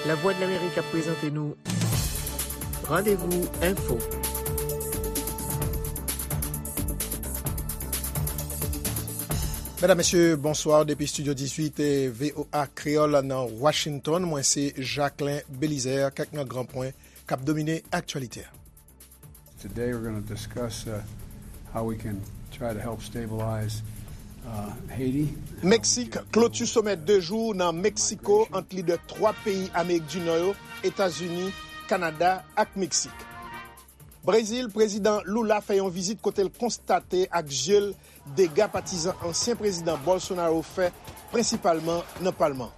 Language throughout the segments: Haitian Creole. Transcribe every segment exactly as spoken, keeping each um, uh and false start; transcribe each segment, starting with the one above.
Lavwadlamerik ap prezante nou Randevou Enfo. Medam, mesye, bonswa. Depi Estidyo dizuit, eh, V O A Kreyòl nan Washington, mwen se Jacquelin Belizaire. Kèk nan gran pwen k ap domine aktyalite a. Today we're gonna discuss, uh, how we can try to help stabilize, uh, Haiti. Meksik kloti somè de jou nan Meksiko ant lidè twa peyi Amerik di Nò yo, Etazini, Kanada ak Meksik. Brezil, Prezidan Lula fè yon vizit kote l konstate ak je l dega patizan ansyen Prezidan Bolsonaro fè, prensipalman nan palman.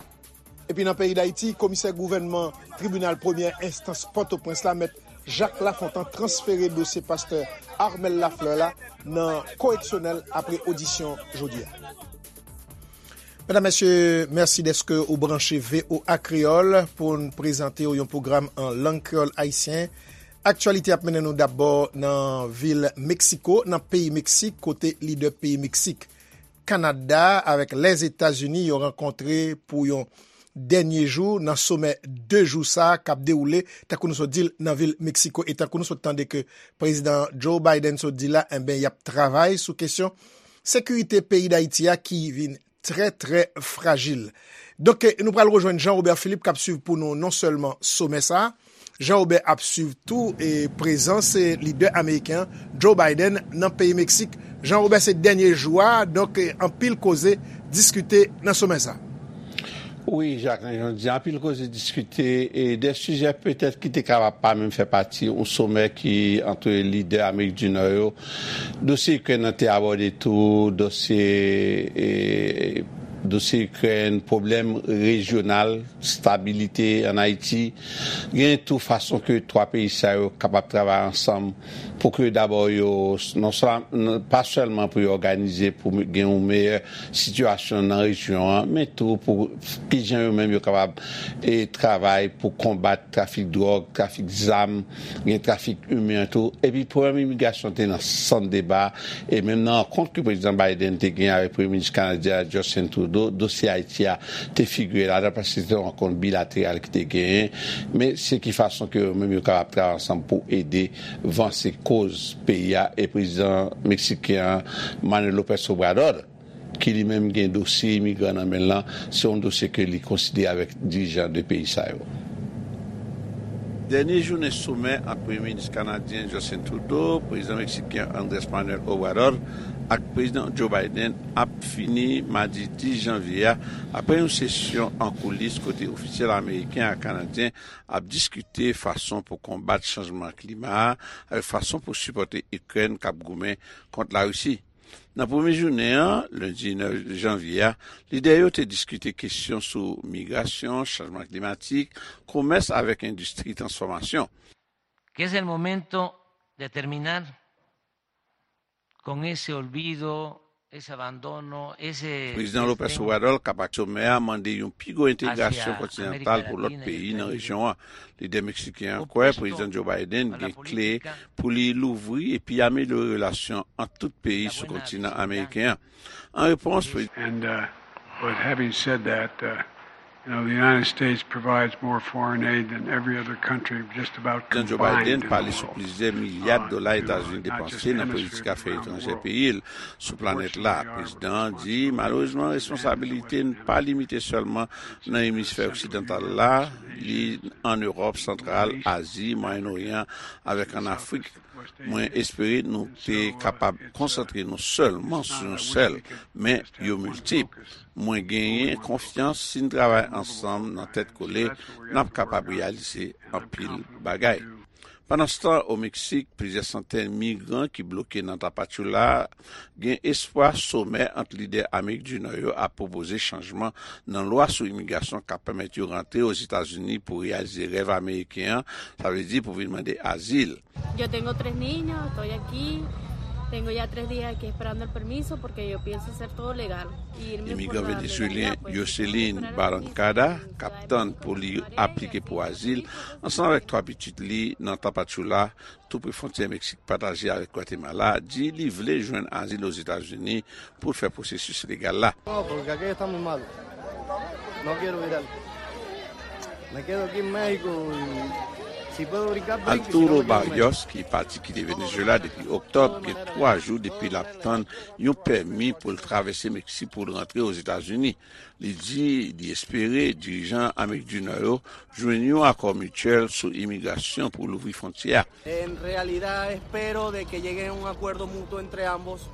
Epi nan peyi Dayiti, komisè gouvènman tribinal premyè enstans Pòtoprens la, mèt Jacques Lafontant, transfere dosye pastè Armel Lafleur la nan koreksyonèl apre odisyon jodi a. Medam, mesye, mèsi dèske ou branche V O A Kreyòl pou n prezante w yon pwogram an lang kreyòl ayisyen. Aktyalite ap mennen nou dabò nan vil Meksiko, nan peyi Meksik, kote lidè peyi Meksik, Kanada avèk Lèzetazini yo rankontre pou yon dènye jou nan somè de jou sa a k ap dewoule, tankou nou sot di l, nan vil Meksiko. E tankou nou sot tande ke Prezidan Joe Biden sot di la, enben, y ap travay sou kesyon sekirite peyi Dayiti a ki vin trè, trè frajil. Donk, eh, nou pral rejwenn Jean Robert Philippe k ap swiv pou nou non sèlman somè sa a, Jean Robert ap swiv tou, eh, prezans, eh, lidè ameriken an, Joe Biden, nan peyi Meksik. Jean Robert, se dènye jou a, donk, eh, anpil koze diskite nan somè sa a. Wi, Jacquelin, jan w di, anpil koze diskite, e de sijè petèt ki te kapab pa menm fè pati yon somè ki ant lidè Amerik di Nò yo. Dosye Ikrèn nan te abòde tou, dosye, e, dosye Ikrèn, pwoblèm rejyonal, stabilite ann Ayiti. Gen tou fason ke twa peyi sa yo kapab travay ansanm pou ke dabò yo, non sèl-, pa sèlman pou yo òganize pou gen yon meyè sitiyasyon nan rejyon an, men tou pou kijan yo menm yo kapab, e, travay pou konbat trafik dwòg, trafik zam, gen trafik imen tou. Epi pwoblèm imigrasyon te nan sant deba, e menm nan rankont ke Prezidan Biden te gen avèk Premye Minis kanadyen an, Justin Trudeau, dosye Ayiti a te figire ladan, paske se te yon rankont bilateral ki te genyen. Men se ki fason ke yo menm yo kapab travay ansanm pou ede vanse koz peyi a, e prezidan meksiken an, Manuel López Obrador, ki li menm gen dosye imigran nan men l lan, se yon dosye ke li konsidere avèk dirijan de peyi sa yo. Dènye jounen somè ant Premye Minis kanadyen Justin Trudeau, Prezidan Meksiken Andrés Manuel Obrador ak Prezidan Joe Biden ap fini madi dis janvye a, apre yon sesyon an koulis kote ofisyèl ameriken ak kanadyen ap diskite fason pou konbat chanjman klima a avèk fason pou sipòte Ikrèn k ap goumen kont Larisi. Nan premye jounen an, lendi nèf janvye a, lidè yo te diskite kesyon sou migrasyon, chanjman klimatik, komès avèk endistri transfòmasyon. Que es el momento de terminar con ese olvido, ese abandono, ese Prezidan López desdén. Obrador k ap ak somè a mande yon pi gwo entegrasyon kontinantal pou lòt peyi nan rejyon an. Lidè meksiken an kwè Prezidan Joe Biden gen kle pou li louvri epi amelyore relasyon ant tout peyi sou kontinan ameriken an. An repons, Prezidan And, uh, but having said that, uh, you know, the United States provides more foreign aid than every other country just about Prezidan Joe combined Biden in the pale sou world. Plizyè milya dola Etazini depanse nan politik afè etranjè peyi l sou planèt la. Prezidan an di, malerezman, responsabilite n pa limite sèlman nan emisfè oksidantal la, li an Ewòp santral, Azi, Mwayen Oryan, avèk ann Afrik. Mwen espere nou te kapab konsantre nou sèlman sou yon sèl, men yo miltip. Mwen genyen konfyans si n travay ansanm nan tèt kole, n ap kapab reyalize anpil bagay. Pandanstan, o Meksik, plizyè santèn migran ki bloke nan Tapachula gen espwa somè ant lidè Amerik di Nò yo ap pwopoze chanjman nan lwa sou imigrasyon k ap pèmèt yo rantre Ozetazini pou reyalize rèv ameriken an, sa vle di pou vin mande azil. Yo tengo tres niños, estoy aquí. Tengo ya tres días aquí esperando el permiso porque yo pienso hacer todo legal. Imigran venezuelyen Yoselin Barrancada, k ap tann pou li aplike pou azil, ansanm avèk twa pitit li nan Tapachula, tou pre fwontyè Meksik pataje avèk Gwatemala, di li vle jwenn azil Ozetazini pou l fè pwosesis legal la. No, porque aquí está muy malo. No quiero gritar. Me quedo aquí en México y si puedo brincar, brinco, y si no, Arturo me quedo en México. Barrios, ki pati kite Venezuela depi oktòb, gen twa jou depi l ap tann yon pèmi pou l travèse Meksik pou l rantre Ozetazini. Li di li espere dirijan Amerik di Nò yo jwenn yon akò mityèl sou imigrasyon pou louvri fwontyè a. En realidad espero de que lleguen a un acuerdo mutuo entre ambos.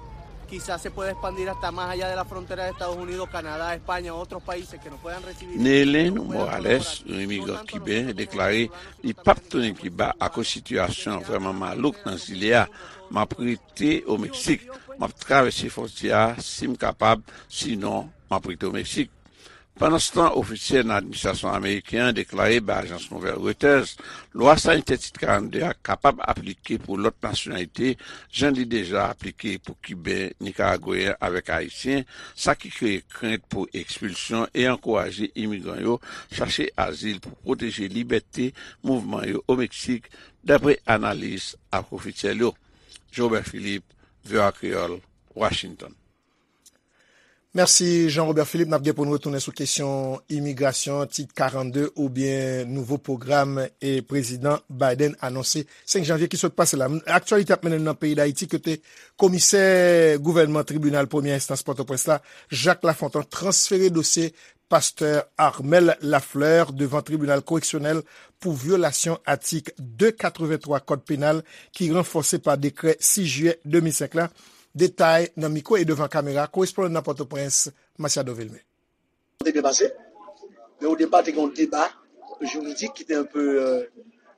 Quizás se pueda expandir hasta más allá de la frontera de Estados Unidos, Canadá, España, otros países que nos puedan recibir. Neelen Morales, yon imigran kiben, deklare li p ap tounen Kiba akoz sitiyasyon an vrèman malouk nan zile a. "M ap rete o Meksik. M ap travèse fwontyè a si m kapab, sinon, m ap rete o Meksik." Pandanstan, ofisyèl nan administrasyon ameriken an deklare bay ajans nouvèl Reuters, lwa sanitè tit karannde a kapab aplike pou lòt nasyonalite, jan li deja aplike pou Kiben, Nikaragweyen avèk Ayisyen, sa ki kreye krent pou ekspilsyon e ankouraje imigran yo chache azil pou pwoteje libète mouvman yo o Meksik, dapre analis ak ofisyèl yo. Jean Robert Philippe, V O A Kreyòl, Washington. Mèsi, Jean Robert Philippe. N ap gen pou n retounen sou kesyon imigrasyon, tit karannde oubyen nouvo pwogram e prezidan Biden anonse senk janvye ki sot pase la. Aktyalite ap mennen n nan peyi Dayiti, kote komisè gouvènman tribinal premyè enstans Pòtoprens la, Jacques Lafontant, transfere dosye pastè Armel Lafleur devan tribinal koreksyonèl pou vyolasyon atik de katrevenntwa kòd penal ki ranfòse pa dekrè sis jiyè de mil senk la. Detay nan mikwo e devan kamera korespondan nan Pòtoprens, Masiado Vilmé. Te byen pase, men o depa te gen yon deba jiridik ki te un peu, euh,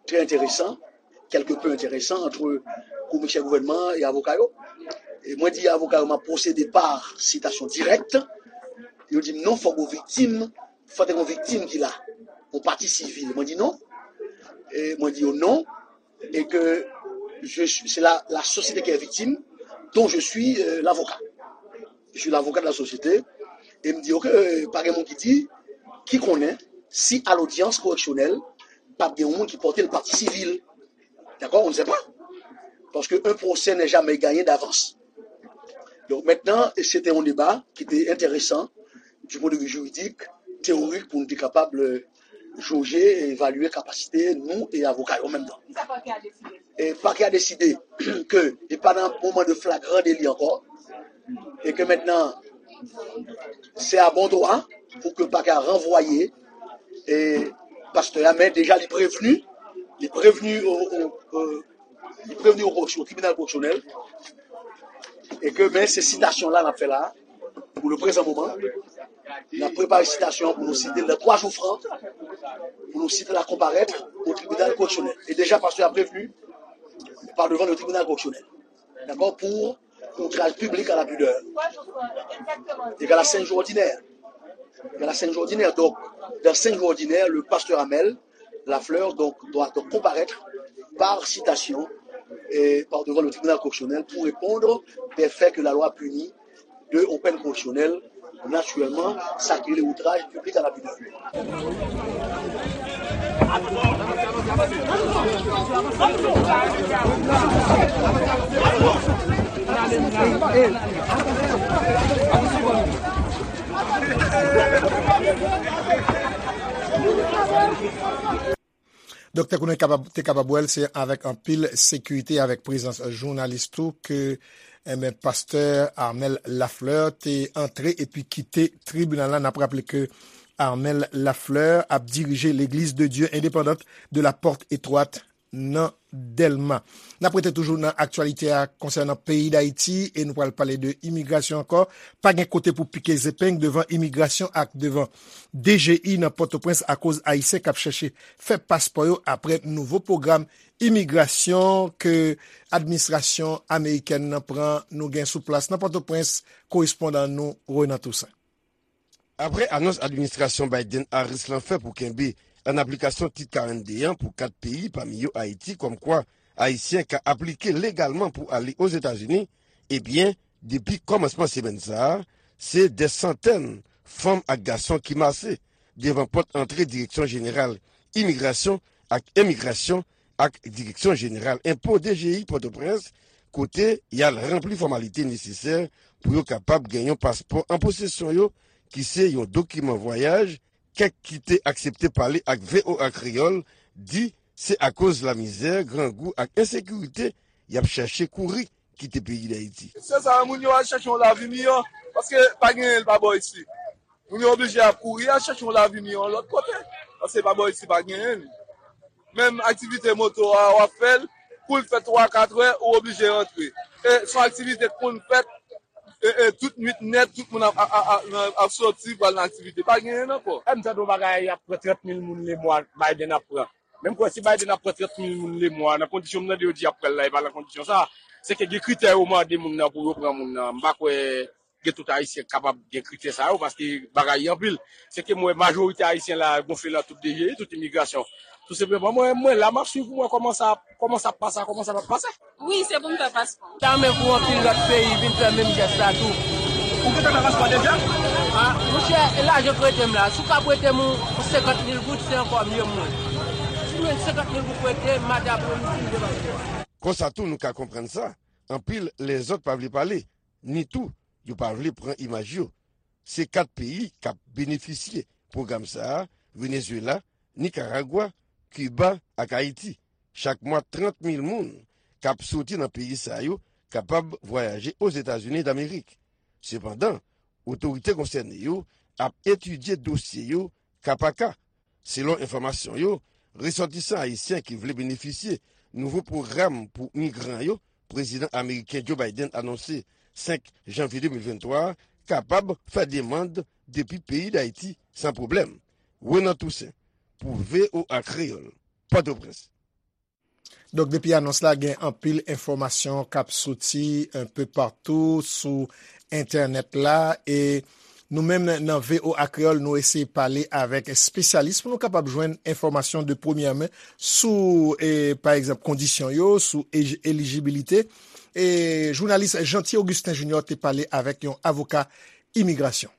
très intéressant, quelque peu intéressant entre komisè gouvènman e avoka yo. E mwen di avoka yo m ap pwosede pa sitasyon dirèk. Yo di m non, fòk ou viktim, fòk te gen yon viktim ki la, yon pati sivil. Mwen di non. E mwen di yo non. Et que je suis, c'est la, la société qui est victime, dont je suis euh, l'avocat. Je suis l'avocat de la société. E m di, ok, euh, pa gen moun ki di, ki konnen si a lodyans koreksyonèl, p ap gen yon moun ki pote l pati sivil. D'accord, on ne sait pas. Parce qu'un procès n'est jamais gagné d'avance. Donc maintenant, c'était un débat qui était intéressant du point de vue juridique, théorique, pou nou te kapab euh, joje e evalye kapasite nou e avoka yo an menm tan. Kisa pakè a deside? E pakè a deside ke e pa nan moman de flagran deli ankò, e ke mentnan se a bon dwa pou ke pakè a ranvwaye e pastè a, men deja li prevni, li prevni o, o, o, li prevni o koreksyon, o tribinal koreksyonèl, e ke men se sitasyon la n ap fè la, pou le prezan moman, n ap prepare sitasyon pou nou site l nan twa jou fran, pou nou site l a konparèt o tribinal koreksyonèl. E deja pastè a prevni pa devan le tribinal koreksyonèl. Dakò, pou outraj piblik a la pidè. Egal a senk jou òdinè. Egal a senk jou òdinè. Donc, dans cinq jours ordinaires, le pasteur Amel Lafleur donc, doit donc comparaître par citation et par devant le tribunal correctionnel pour répondre des faits que la loi punit de, aux peines correctionnelles, naturellement, ça qui est outrage public à la pudeur. Donk, tankou nou kapab, te kapab wè l, se avèk anpil sekirite, avèk prezans jounalis tou, ke, enben, pastè Armel Lafleur te antre epi kite tribinal la. N ap raple ke Armel Lafleur ap dirije Legliz de Dye Endepandant de la Pòt Etwat nan Dèlma. N ap rete toujou nan aktyalite a konsènan peyi Dayiti e nou pral pale de imigrasyon ankò. Pa gen kote pou pike zepeng devan imigrasyon ak devan D G I nan Pòtoprens akoz Ayisyen k ap chèche fè paspò yo apre nouvo pwogram imigrasyon ke administrasyon amerikèn nan pran. Nou gen sou plas nan Pòtoprens korespondan nou Renan Toussaint. Apre anons administrasyon Biden-Harris lan fè pou kenbe an aplikasyon Tit karannde an pou kat peyi, pami yo Ayiti, kòmkwa Ayisyen ka aplike legalman pou ale Ozetazini, ebyen, depi kòmansman semèn sa a, se dè santèn fanm ak gason ki mase devan pòt antre Direksyon Jeneral Imigrasyon ak Emigrasyon ak Direksyon Jeneral Enpo, D G I, Pòtoprens, kote y al ranpli fòmalite nesesè pou yo kapab gen yon paspò an posesyon yo, ki se yon dokiman vwayaj, Kèk ki te aksepte pale ak V O A Kreyòl di se akoz lamizè, grangou ak ensekirite y ap chèche kouri kite peyi Dayiti. Se sa, moun yo al chèche yon lavi miyò, paske pa genyen l pa bò isi. Moun yo oblije ap kouri al chèche yon lavi miyò yon lòt kote, paske pa bò isi pa genyen l. Menm aktivite moto a, w ap fè l, kou l fè twa, kat è, ou oblije rantre. E se yon aktivite k konn fèt, e, e, tout nwit nèt, tout moun ap, ap, ap, ap, ap soti, pral nan aktivite. Pa genyen l ankò. Lè m tande yon bagay, y ap pran trant mil moun lemwa, Biden ap pran. Men m kwè si Biden ap pran trant mil moun lemwa, nan kondisyon m tande yo di y ap pran l la, e pa nan kondisyon sa. Se ke gen kritè yo mande moun nan pou yo pran moun nan. M pa kwè gen tout Ayisyen k kapab gen kritè sa yo, paske bagay yo anpil. Se ke m wè majorite Ayisyen la gonfle nan tout D G I, tout imigrasyon. Tou senpleman, mwen, mwen la, m ap swiv pou mwen kòman sa, kòman sa ap pase, kòman sa p ap pase. Wi, se pou m fè paspò. Ta renmen pou anpil lòt peyi vin fè menm jès la tou. Ou gentan fè paspò deja? A, monchè, e lajan k rete m la. Si w ka prete m yon senkant mil goud, se ankò mye pou mwen. Si w jwenn senkant mil goud prete, maten apremidi, m gen paspò. Konsa tou, nou ka konprann sa, anpil lèzòt pa vle pale, ni tou, yo pa vle pran imaj yo. Se kat peyi k ap benefisye pwogram sa a, Venezuela, Nikaragwa, Kiba ak Ayiti. Chak mwa, trant mil moun k ap soti nan peyi sa yo kapab vwayaje Ozetazini Damerik. Sepandan, otorite konsène yo ap etidye dosye yo ka pa ka. Selon enfòmasyon yo, resòtisan ayisyen ki vle benefisye nouvo pwogram pou migran yo, prezidan ameriken Joe Biden anonse senk janvye de mil venntwa a, kapab fè demann depi peyi Dayiti san pwoblèm. Renan Toussaint, pou V O A Kreyòl, Pòtoprens. Donk, depi anons la, gen anpil enfòmasyon k ap soti enpe patou sou entènèt la. E nou menm nan, nan V O A Kreyòl, nou eseye pale avèk espesyalis pou nou kapab jwenn enfòmasyon de premyè men sou, e, pa egzanp, kondisyon yo, sou ej-, elijibilite. E jounalis Jeanty Augustin Junior te pale avèk yon avoka imigrasyon.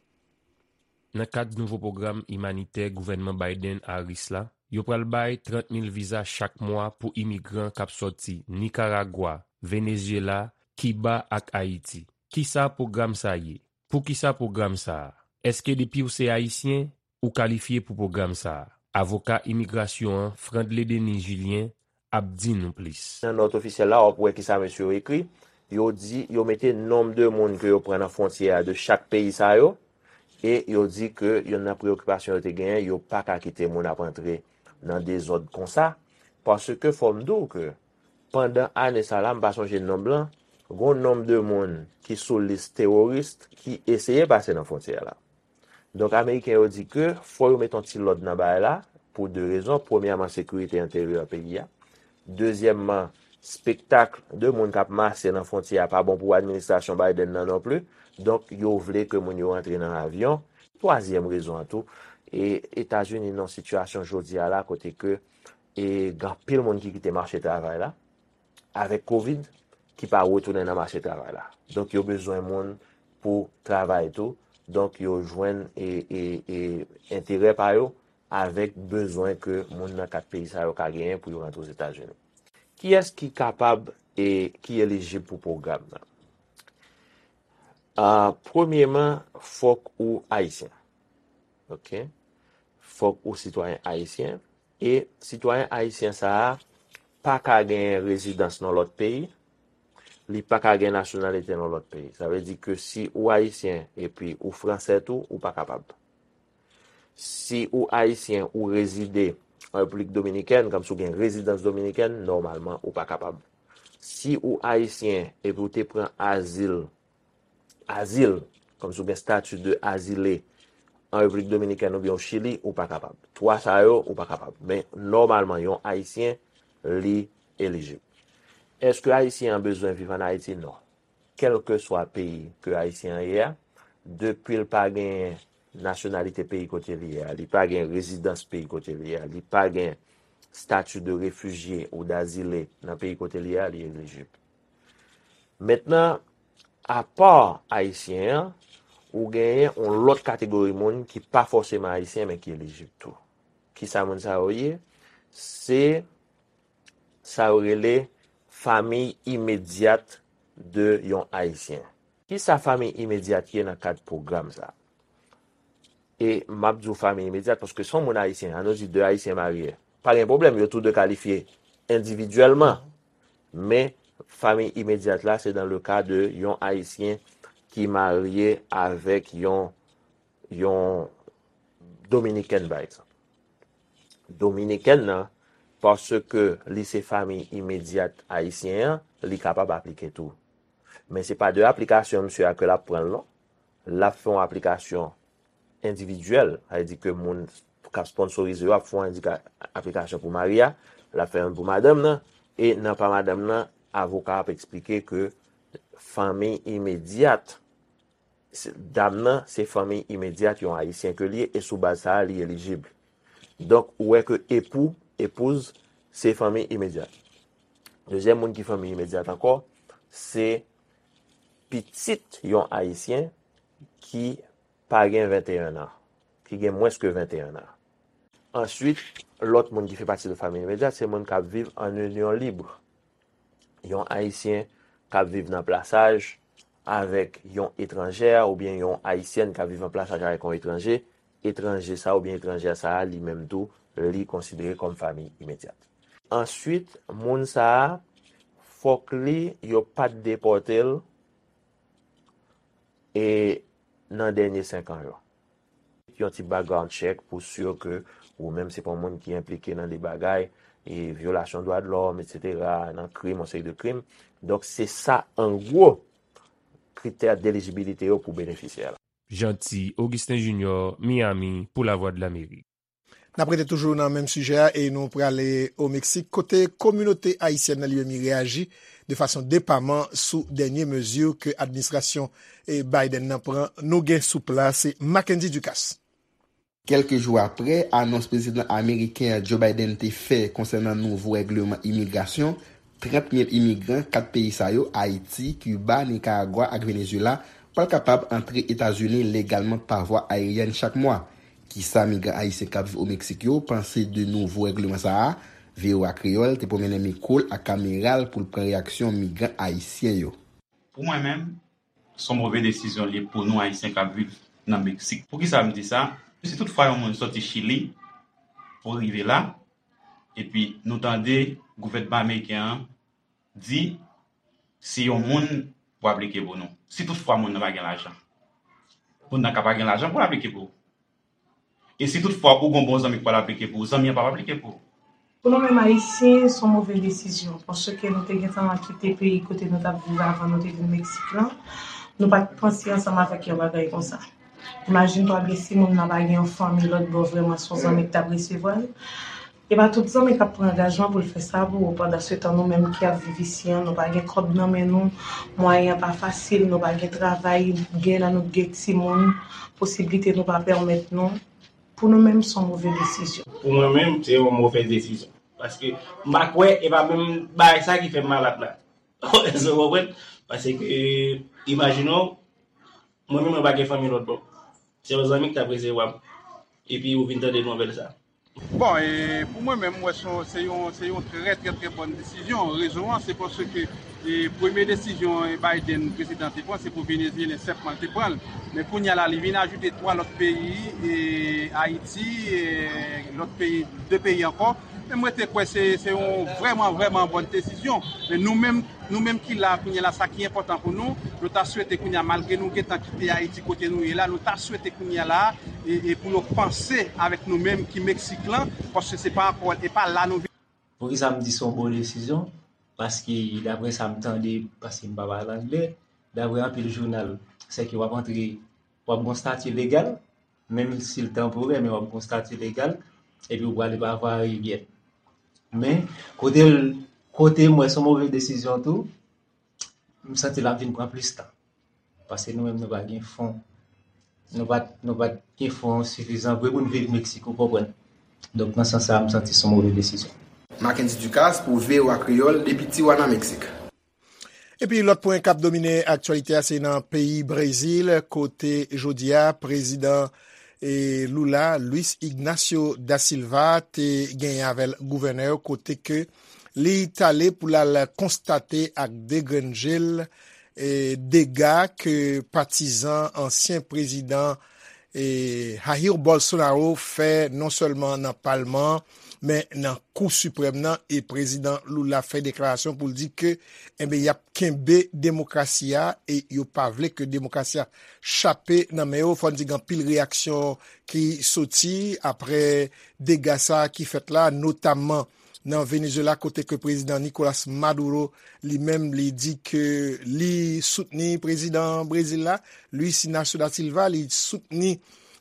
Nan kad nouvo pwogram imanitè gouvènman Biden-Harris la, yo pral bay trant mil viza chak mwa pou imigran k ap sòti Nikaragwa, Venezyela, Kiba ak Ayiti. Kisa pwogram sa ye? Poukisa pwogram sa a? Èske depi w se Ayisyen, ou kalifye pou pwogram sa a? Avoka imigrasyon an, Frandley Denis Julien, ap di nou plis. Nan nòt ofisyèl la, w ap wè kisa mesye yo ekri. Yo di, yo mete nonb de moun ke yo pran nan fwontyè a de chak peyi sa yo, e yo di ke youn nan preyokipasyon yo te genyen, yo pa ka kite moun ap antre nan dezòd konsa, paske fò m di w ke pandan ane sa la, m pa sonje nonb lan, gon nonb de moun ki sou lis teworis ki eseye pase nan fwontyè la. Donk, Ameriken yo di ke fò yo met yon ti lòd nan bagay la, pou de rezon. Premyèman, sekirite enteryè peyi a. Dezyèmman, spektak de moun k ap mache nan fwontyè a pa bon pou administrasyon Biden nan non plis. Donk, yo vle ke moun yo rantre nan avyon. Twazyèm rezon an tou, e Etazini nan sitiyasyon jodi a la kote ke e gen anpil moun ki kite mache travay la avèk kovid ki pa retounen nan mache travay la. Donk, yo bezwen moun pou travay tou. Donk, yo jwenn e, e, e enterè pa yo avèk bezwen ke moun nan kat peyi sa yo ka genyen pou yo rantre Ozetazini. Kiyès ki kapab e ki elijib pou pwogram nan? A, premyeman, fòk ou ayisyen. Oke? Fòk ou sitwayen ayisyen. E sitwayen ayisyen sa a pa ka gen rezidans nan lòt peyi, li pa ka gen nasyonalite nan lòt peyi. Sa vle di ke si ou ayisyen epi ou fransè tou, ou pa kapab. Si ou ayisyen, ou rezide an Repiblik Dominikèn, kòmsi ou gen rezidans dominikèn, nòmalman, ou pa kapab. Si ou ayisyen epi ou te pran azil azil, kòmsi w gen stati de azile an Repiblik Dominikèn oubyen o Chili, ou pa kapab. Twa sa yo, ou pa kapab. Men, nòmalman, yon Ayisyen, li elijib. Èske Ayisyen an bezwen viv ann Ayiti? Non. Kèlkeswa peyi ke Ayisyen an ye a, depi l pa gen nasyonalite peyi kote li ye a, li pa gen rezidans peyi kote li ye a, li pa gen stati de refijye ou dazile nan peyi kote li ye a, li elijib. Mentnan, apa Ayisyen an, ou genyen yon lòt kategori moun ki pa fòseman Ayisyen, men ki elijib tou. Kisa moun sa yo ye? Se sa yo rele fanmi imedyat de yon Ayisyen. Kisa fanmi imedyat ye nan kad pwogram sa? E m ap di w fanmi imedyat, paske se yon moun ayisyen, ann nou di de ayisyen marye. Pa gen pwoblèm, yo tou de kalifye endividyèlman. Men, fanmi imedyat la, se dans le cas de yon ayisyen ki marye avèk yon, yon dominikèn, pa egzanp. Dominikèn nan, paske li se fanmi imedyat ayisyen an, li kapab aplike tou. Men se pa de aplikasyon misye a ke l ap pran l non. L ap fè yon aplikasyon endividyèl, sa vle di ke moun k ap sponsorize yo ap fè yon endika-, aplikasyon pou mari a, l ap fè youn pou madanm nan, e nan pa madanm nan, avoka ap eksplike ke fanmi imedyat, se, dam nan, se fanmi imedyat yon ayisyen ke li ye, e sou baz sa a, li elijib. Donk, ou wè ke epou, epouz, se fanmi imedyat. Dezyèm moun ki fanmi imedyat ankò, se pitit yon ayisyen ki pa gen venteyen an, ki gen mwens ke venteyen an. Answit, lòt moun ki fè pati de fanmi imedyat, se moun k ap viv an inyon lib. Yon ayisyen k ap viv nan plasaj avèk yon etranjè oubyen yon ayisyèn k ap viv an plasaj avèk yon etranje, etranje sa a oubyen etranjè sa a, li menm tou, li konsidere kòm fanmi imedyat. Answit, moun sa a, fòk li, yo pa t depòte l, e nan dènye senk an yo. Yon ti background check pou si ke ou menm se pa yon moun ki enplike nan de bagay, e vyolasyon dwa de lòm, etsetera, nan krim, yon seri de krim. Donk, se sa, an gwo, kritè delijibilite yo pou benefisyè la. Jeanty Augustin Junior, Miami, pou Lavwadlamerik. N ap rete toujou nan menm sijè a e nou prale o Meksik, kote kominote ayisyèn nan Liyemi reyaji de fason depaman sou dènye mezi ke administrasyon, e, Biden nan pran. Nou gen sou plas, se Mackendy Ducasse. Kèlke jou apre anons prezidan ameriken an Joe Biden te fè konsènan nouvo règleman imigrasyon, trant mil imigran kat peyi sa yo, Ayiti, Kiba, Nikaragwa ak Venezuela, pral kapab antre Etazini legalman pa vwa ayeryèn chak mwa. Kisa migran ayisyen k ap viv o Meksik yo panse de nouvo règleman sa a? V O A Kreyòl te pwomennen mikwo l ak kamera l pou l pran reyaksyon migran ayisyen yo. Pou mwen menm, se yon move desizyon li ye pou nou Ayisyen k ap viv nan Meksik. Poukisa m di sa? Si toutfwa yon moun soti Chili pou rive la, epi nou tande gouvènman ameriken an di si yon moun pou aplike pou nou, si toutfwa moun nan pa gen lajan, moun nan ka pa gen lajan pou l aplike pou ou. E si toutfwa ou gen yon bon zanmi k pral aplike pou ou, zanmi an p ap aplike pou ou. Pou nou menm Ayisyen, se yon move desizyon, paske nou te gentan kite peyi kote nou t ap viv avan nou te vin Meksik lan. Nou pa t panse ansanm avèk yon bagay konsa. Imajine twa, byen si moun nan pa gen yon fanmi lòt bò, vrèman se yon zanmi ki t ap resevwa l. E pa tout zanmi k ap pran angajman pou l fè sa pou ou. Pandansetan, nou menm ki ap viv isi an, nou pa gen kòb nan men nou, mwayen an pa fasil, nou pa gen travay, gen nan nou gen timoun, posiblite nou pa pèmèt nou. Pou nou menm, se yon move desizyon. Pou mwen menm, se yon move desizyon. Paske m pa kwè, e pa menm bagay sa ki fè m malad la. Èske w konprann? Paske, imajine w, mwen menm, mwen pa gen fanmi lòt bò. Se yon zanmi ki t ap resevwa m. Epi ou vin tande nouvèl sa. Bon, e pou mwen menm, m wè se yon, se yon, se yon trè, trè, trè bòn desizyon. Rezon an, se paske, e, premye desizyon, e, Biden, prezidan te pran, se pou Venezyelyen sèlman l te pran l. Men kounye a la, li vin ajoute twa lòt peyi, e, Ayiti, e, lòt peyi, de peyi ankò. Men mwen te kwè se, se yon vrèman, vrèman bòn desizyon. Men nou menm, nou menm ki la kounye a la, sa ki enpòtan pou nou, nou ta swete kounye a, malgre nou gentan kite Ayiti kote nou ye la, nou ta swete kounye a la, e, e pou yo panse avèk nou menm ki Meksik lan, paske se pa ankò, e pa la nou vin. Poukisa m di se yon bon desizyon? Paske daprè sa m tande, paske m pa pale anglè, daprè anpil jounal, sèke w ap antre, w ap gon stati legal, menm si l tanporè, men w ap gon stati legal, epi w prale pa vwa ayeryèn. Men, kote l, kote m wè se yon move desizyon tou, m santi l ap vin pran plis tan. Paske nou menm nou pa gen fon. Nou pa, nou pa gen fon sifizan vre pou n viv Meksik, ou konprann. Donk, nan sans sa a, m santi se yon move desizyon. Mackendy Ducasse pou V O A Kreyòl depi Tijuana, Meksik. Epi lòt pwen k ap domine aktyalite a, se nan peyi Brezil, kote jodi a, prezidan, e, Lula, Luiz Ignacio da Silva, te genyen avè l gouvènè yo, kote ke li t ale pou l al konstate ak degrenn je l, e, dega ke patizan ansyen prezidan, e, Jair Bolsonaro fè non sèlman nan palman an, men nan Kou Siprèm nan, e prezidan Lula fè deklarasyon pou l di ke, enben, y ap kenbe demokrasi a, e yo pa vle ke demokrasi a chape nan men yo. Fò n di gen anpil reyaksyon ki soti apre dega sa ki fèt la, notamman nan Venezuela, kote ke prezidan Nicolas Maduro, li menm, li di ke li soutni prezidan Brezil la, Luiz Inácio da Silva, li soutni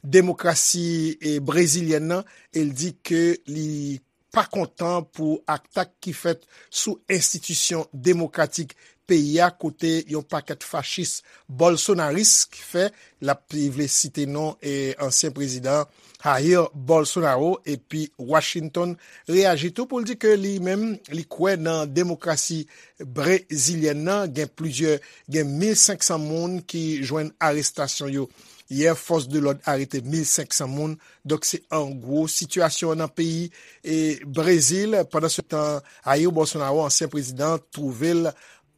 demokrasi, e, brezilyèn nan, e l di ke li pa kontan pou atak ki fèt sou enstitisyon demokratik peyi a, kote yon pakèt fachis bolsonaris ki fè, l ap, li vle site non, e, ansyen prezidan Jair Bolsonaro, epi Washington reyaji tou pou l di ke li menm, li kwè nan demokrasi brezilyèn nan. Gen plizyè, gen mil senk san moun ki jwenn arestasyon yo yè, fòs de lòd arete mil senk san moun. Donk, se an gwo sitiyasyon an nan peyi, e, Brezil. Pandan se tan, Jair Bolsonaro, ansyen prezidan, twouve l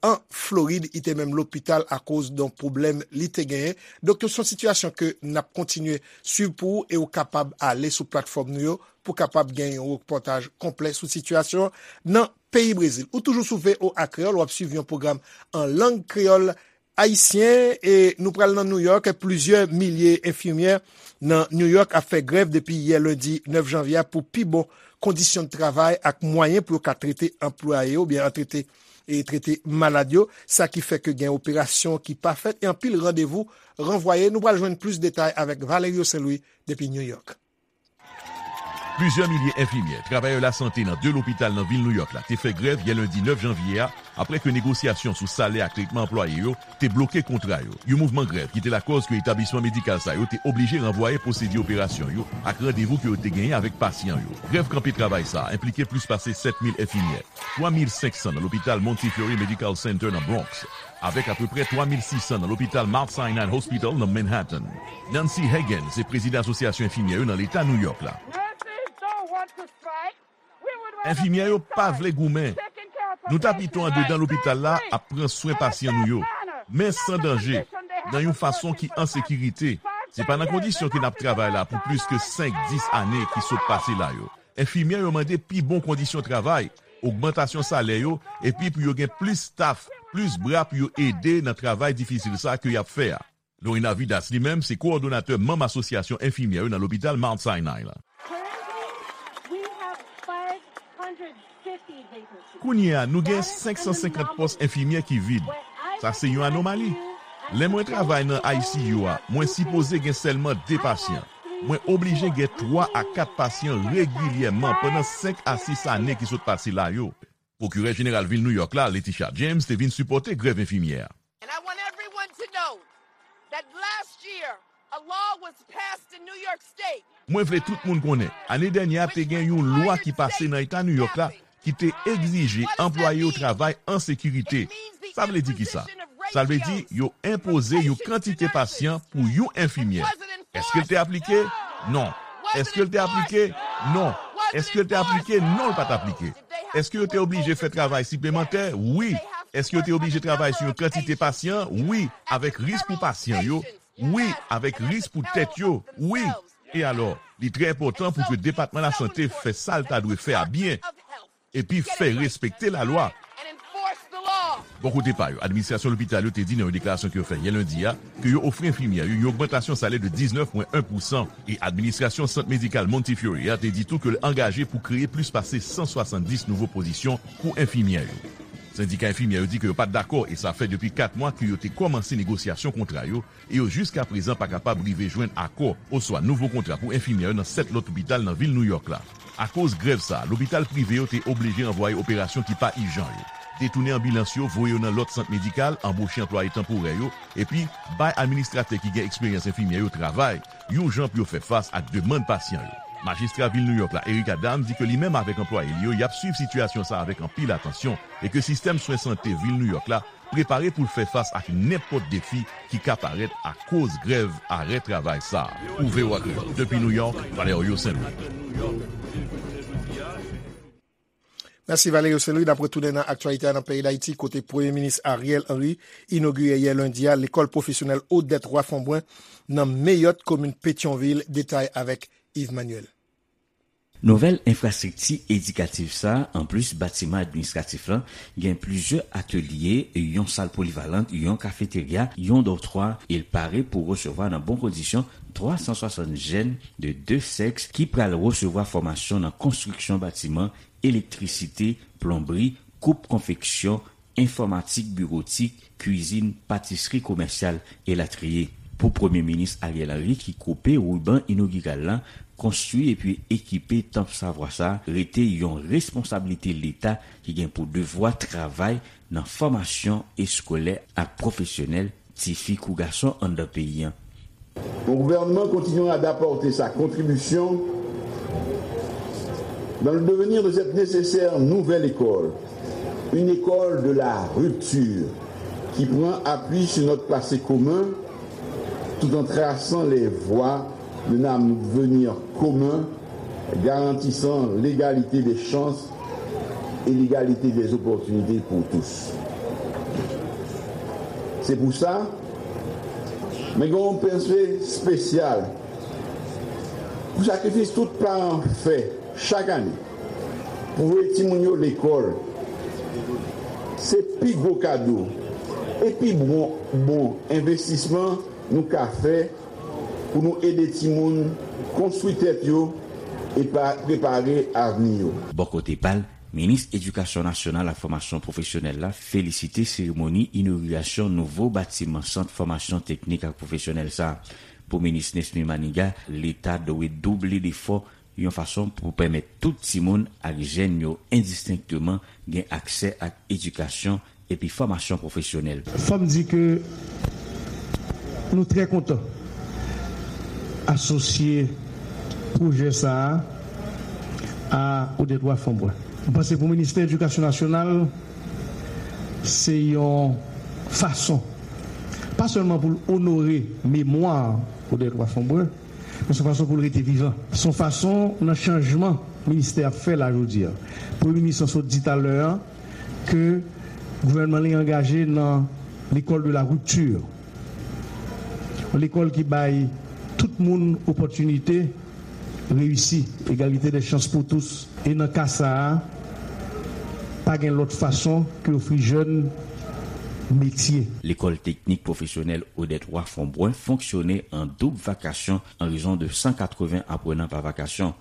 an Florid, li te menm lopital akoz de yon pwoblèm li te genyen. Donk, se yon sitiyasyon ke n ap kontinye swiv pou ou, e ou kapab ale sou platfòm nou yo pou kapab gen yon repòtaj konplè sou sitiyasyon nan peyi Brezil. Ou toujou sou V O A Kreyòl, w ap swiv yon pwogram an lang kreyòl ayisyen, e nou pral nan New York. Plizyè milye enfimyè nan New York ap fè grèv depi yè lendi nèf janvye a pou pi bon kondisyon de travay ak mwayen pou yo ka trete anplwaye yo, oubyen an trete, e trete malad yo, sa ki fè ke gen operasyon ki pa fèt e anpil randevou ranvwaye. Nou pral jwenn plis detay avèk Valerio Saint Louis depi New York. Plizyè milye enfimyè, travayè lasante nan de lopital nan vil Nouyòk la te fè grèv yè lendi nèf janvye a, apre ke negosyasyon sou salè ak tretman anplwaye yo te bloke kontra yo. Yon mouvman grèv ki te lakòz ke etablisman medikal sa yo te oblije ranvwaye pwosedi operasyon yo ak randevou ke yo te genyen avèk pasyan yo. Grèv kanpe travay sa a enplike plis pase sèt mil enfimyè, twa mil senk san nan lopital Montefiore Medical Center nan Bronx, avèk apeprè twa mil sis san nan lopital Mount Sinai Hospital nan Manhattan. Nancy Hagen se prezidan Asosyasyon Enfimyè yo nan Leta Nouyòk la. Enfimyè yo pa vle goumen. Nou ta pito andedan lopital la ap pran swen pasyan nou yo, men san danje, nan yon fason ki an sekirite. Se pa nan kondisyon ke n ap travay la pou plis ke senk, dis ane ki sot pase la yo. Enfimyè yo mande pi bon kondisyon travay, ogmantasyon salè yo, epi pou yo gen plis staf, plis bra pou yo ede nan travay difisil sa ke y ap fè a. Lorena Vidas, li menm, se kowòdonatè manm Asosyasyon Enfimyè yo nan lopital Mount Sinai la. Kounye a, nou gen senk san senkant pòs enfimyè ki vid. Sa se yon anomali. Lè mwen travay nan I C U a, mwen sipoze gen sèlman de pasyan. Mwen oblije gen twa a kat pasyan regilyèman pandan senk a sis ane ki sot pase la yo. Pwokirè Jeneral Vil Nouyòk la, Letitia James, te vin sipòte grèv enfimyè a. And I want everyone to know that last year, a law was passed in New York State. Mwen vle tout moun konnen, ane dènyè a te gen yon lwa ki pase nan Eta Nouyòk la ki te egzije anplwaye yo travay an sekirite. Sa vle di ki sa? Sa vle di yo enpoze yon kantite pasyan pou yon enfimyè. Èske l te aplike? Non. Èske l te aplike? Non. Èske l te aplike? Non, l pa t aplike. Èske yo te oblije fè travay siplemantè? Wi. Èske yo te oblije travay sou yon kantite pasyan? Wi. Avèk risk pou pasyan yo? Wi. Avèk risk pou tèt yo? Wi. E alò, li trè enpòtan pou ke Depatman Lasante fè sa l ta dwe fè a byen, epi fè respekte lalwa. Bò kote pa yo, administrasyon lopital yo te di nan yon deklarasyon ke yo fè yè lendi a ke yo ofri enfimyè yo yon ogmantasyon salè de diznèf pwen en pousan, e administrasyon Sant Medikal Montefiore a te di tou ke l angaje pou kreye plis pase san swasanndis nouvo pozisyon pou enfimyè yo. Sendika enfimyè yo di ke yo pa t dakò, e sa fè depi kat mwa ke yo te kòmanse negosyasyon kontra yo, e yo jiskaprezan pa kapab rive jwenn akò oswa nouvo kontra pou enfimyè yo nan sèt lòt lopital nan vil Nouyòk la. Akoz grèv sa a, lopital prive yo te oblije ranvwaye operasyon ki pa ijan yo, detounen anbilans yo, voye yo nan lòt sant medikal, anboche anplwaye tanporè yo, epi bay administratè ki gen eksperyans enfimyè yo travay, yon jan pou yo fè fas ak demann pasyan yo. Majistra vil Nouyòk la, Eric Adams, di ke li menm avèk anplwaye li yo, y ap swiv sitiyasyon sa a avèk anpil atansyon, e ke sistèm swen sante vil Nouyòk la prepare pou l fè fas ak nenpòt defi ki ka parèt akoz grèv arè travay sa a. Pou V O A Kreyòl, depi Nouyòk, Valerio Saint Louis. Mèsi Valerio Saint-Louis. N ap retounen nan aktyalite a nan peyi Dayiti, kote Premye Minis Ariel Henry inogire yè lendi a lekòl pwofesyonèl Odette Roy Fombrun nan Meyòt, komin Petyonvil. Detay avèk Yves Manuel. Nouvèl enfrastrikti edikatif sa a, anplis batiman administratif lan, gen plizyè atelye, yon sal polivalant, yon kafeterya, yon dòtwa, e l pare pou resevwa nan bon kondisyon twa san swasant jèn de de sèks ki pral resevwa fòmasyon nan konstriksyon batiman, elektrisite, plonbri, koup konfeksyon, enfòmatik biwotik, kwizin, patisri komèsyal, elatriye. Pou Premye Minis Ariel Henry ki koupe riban inogiral la, konstwi epi ekipe tanp savwa sa a rete yon responsablite Leta ki gen pou devwa travay nan fòmasyon eskolè ak pwofesyonèl tifi kou gason anndan peyi a. Mon gouvernement continuera d'apporter sa contribution dans le devenir de cette nécessaire nouvelle école, une école de la rupture qui prend appui sur notre passé commun tout en traçant les voies d'un avenir commun garantissant l'égalité des chances et l'égalité des opportunités pour tous. Se pou sa, mwen gen yon panse espesyal pou sakrifis tout paran fè chak ane pou voye timoun yo lekòl. Se pi gwo kado e pi bon, bon envestisman nou ka fè pou nou ede timoun konstwi tèt yo e pa prepare avni yo. Bò kote pa l, Minis Edikasyon Nasyonal ak Fòmasyon Pwofesyonèl la felisite seremoni inogirasyon nouvo batiman Sant Fòmasyon Teknik ak Pwofesyonèl sa a. Pou Minis Nesmy Manigat, Leta dwe double lefò yon fason pou pèmèt tout timoun ak jèn yo endistenkteman gen aksè ak edikasyon epi fòmasyon pwofesyonèl. Fò m di ke nou trè kontan asosye pwojè sa a a Odette Roy Fombrun. M panse pou Ministè Edikasyon Nasyonal, se yon fason, pa sèlman pou l onore memwa Odette Roy Fombrun, men se yon fason pou l rete vivan. Se yon fason nan chanjman ministè ap fè la jodi a. Premye minis lan sot di talè a ke gouvènman li angaje nan l'école de la rupture. Yon lekòl ki bay tout moun opòtinite reyisi, egalite de chans pou tous. E nan ka sa a, pa gen lòt fason ke ofri jèn metye. Lekòl teknik pwofesyonèl Odette Roy Fombrun fonksyone an doub vakasyon an rezon de san katreven aprenan pa vakasyon.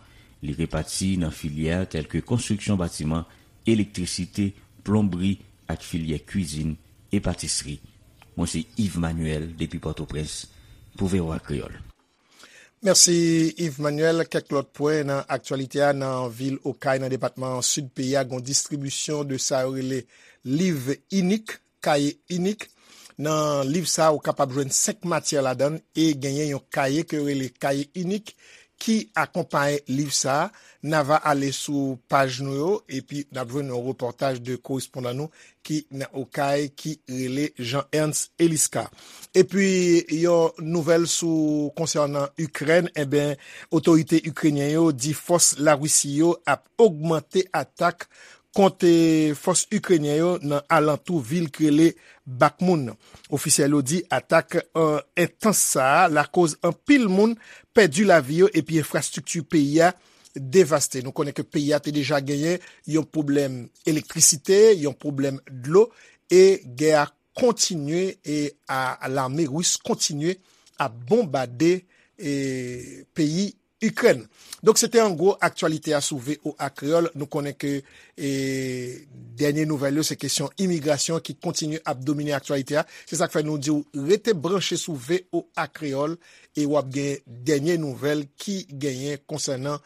Li repati nan filyè tèlke konstriksyon batiman, elektrisite, plonbri ak filyè kwizin e patisri. Mwen se Yves Manuel depi Pòtoprens pou V O A Kreyòl. Mèsi, Yves Manuel. Kèk lòt pwen nan aktyalite a, nan vil Okay, nan depatman Sid peyi a, gen yon distribisyon de sa yo rele liv inik, kaye inik. Nan liv sa a, ou kapab jwenn senk matyè ladan l e genyen yon kaye ke yo rele kaye inik ki akonpaye liv sa a. N a va ale sou paj nou yo, epi n ap jwenn yon repòtaj de korespondan nou ki nan Okay, ki rele Jean Ernst Elisca. Epi, yon nouvèl sou, konsènan Ikrèn, enben, otorite ikrenyen yo di fòs Larisi yo ap ogmante atak kont, eh, fòs ikrenyen yo nan alantou vil ki rele Bakhmut. Ofisyèl yo di atak, eh, entans sa a lakoz anpil moun pèdi lavi yo epi enfrastrikti peyi a devaste. Nou konnen ke peyi a te deja genyen yon pwoblèm elektrisite, yon pwoblèm dlo, e gè a kontinye, e a, a lame ris kontinye ap bonbade, e, peyi Ikrèn. Donk, se te an gwo aktyalite a sou V O A Kreyòl. Nou konnen ke, e, dènye nouvèl yo, se kesyon imigrasyon ki kontinye ap domine aktyalite a. Se sa k fè nou di w rete branche sou V O A Kreyòl e w ap gen dènye nouvèl ki genyen konsènan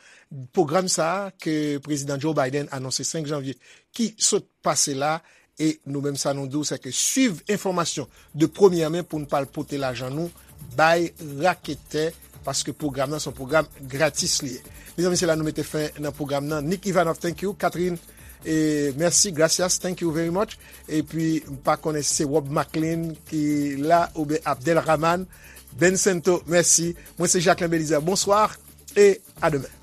pwogram sa a ke Prezidan Joe Biden anonse senk janvye ki sot pase la. E nou menm, sa nou di w, se ke swiv enfòmasyon de premyè men pou n pa al pote lajan nou bay raketè, paske pwogram nan se yon pwogram gratis li ye. Mezanmi, se la nou mete fen nan pwogram nan. Nick Ivanov, thank you. Catherine, e, mèsi. Gracias, thank you very much. Epi, m pa konnen si se Rob McLean ki la, oubyen Abdel Rahman. Ben Sento, mèsi. Mwen, se Jacquelin Belizaire. Bonsoir et à demain.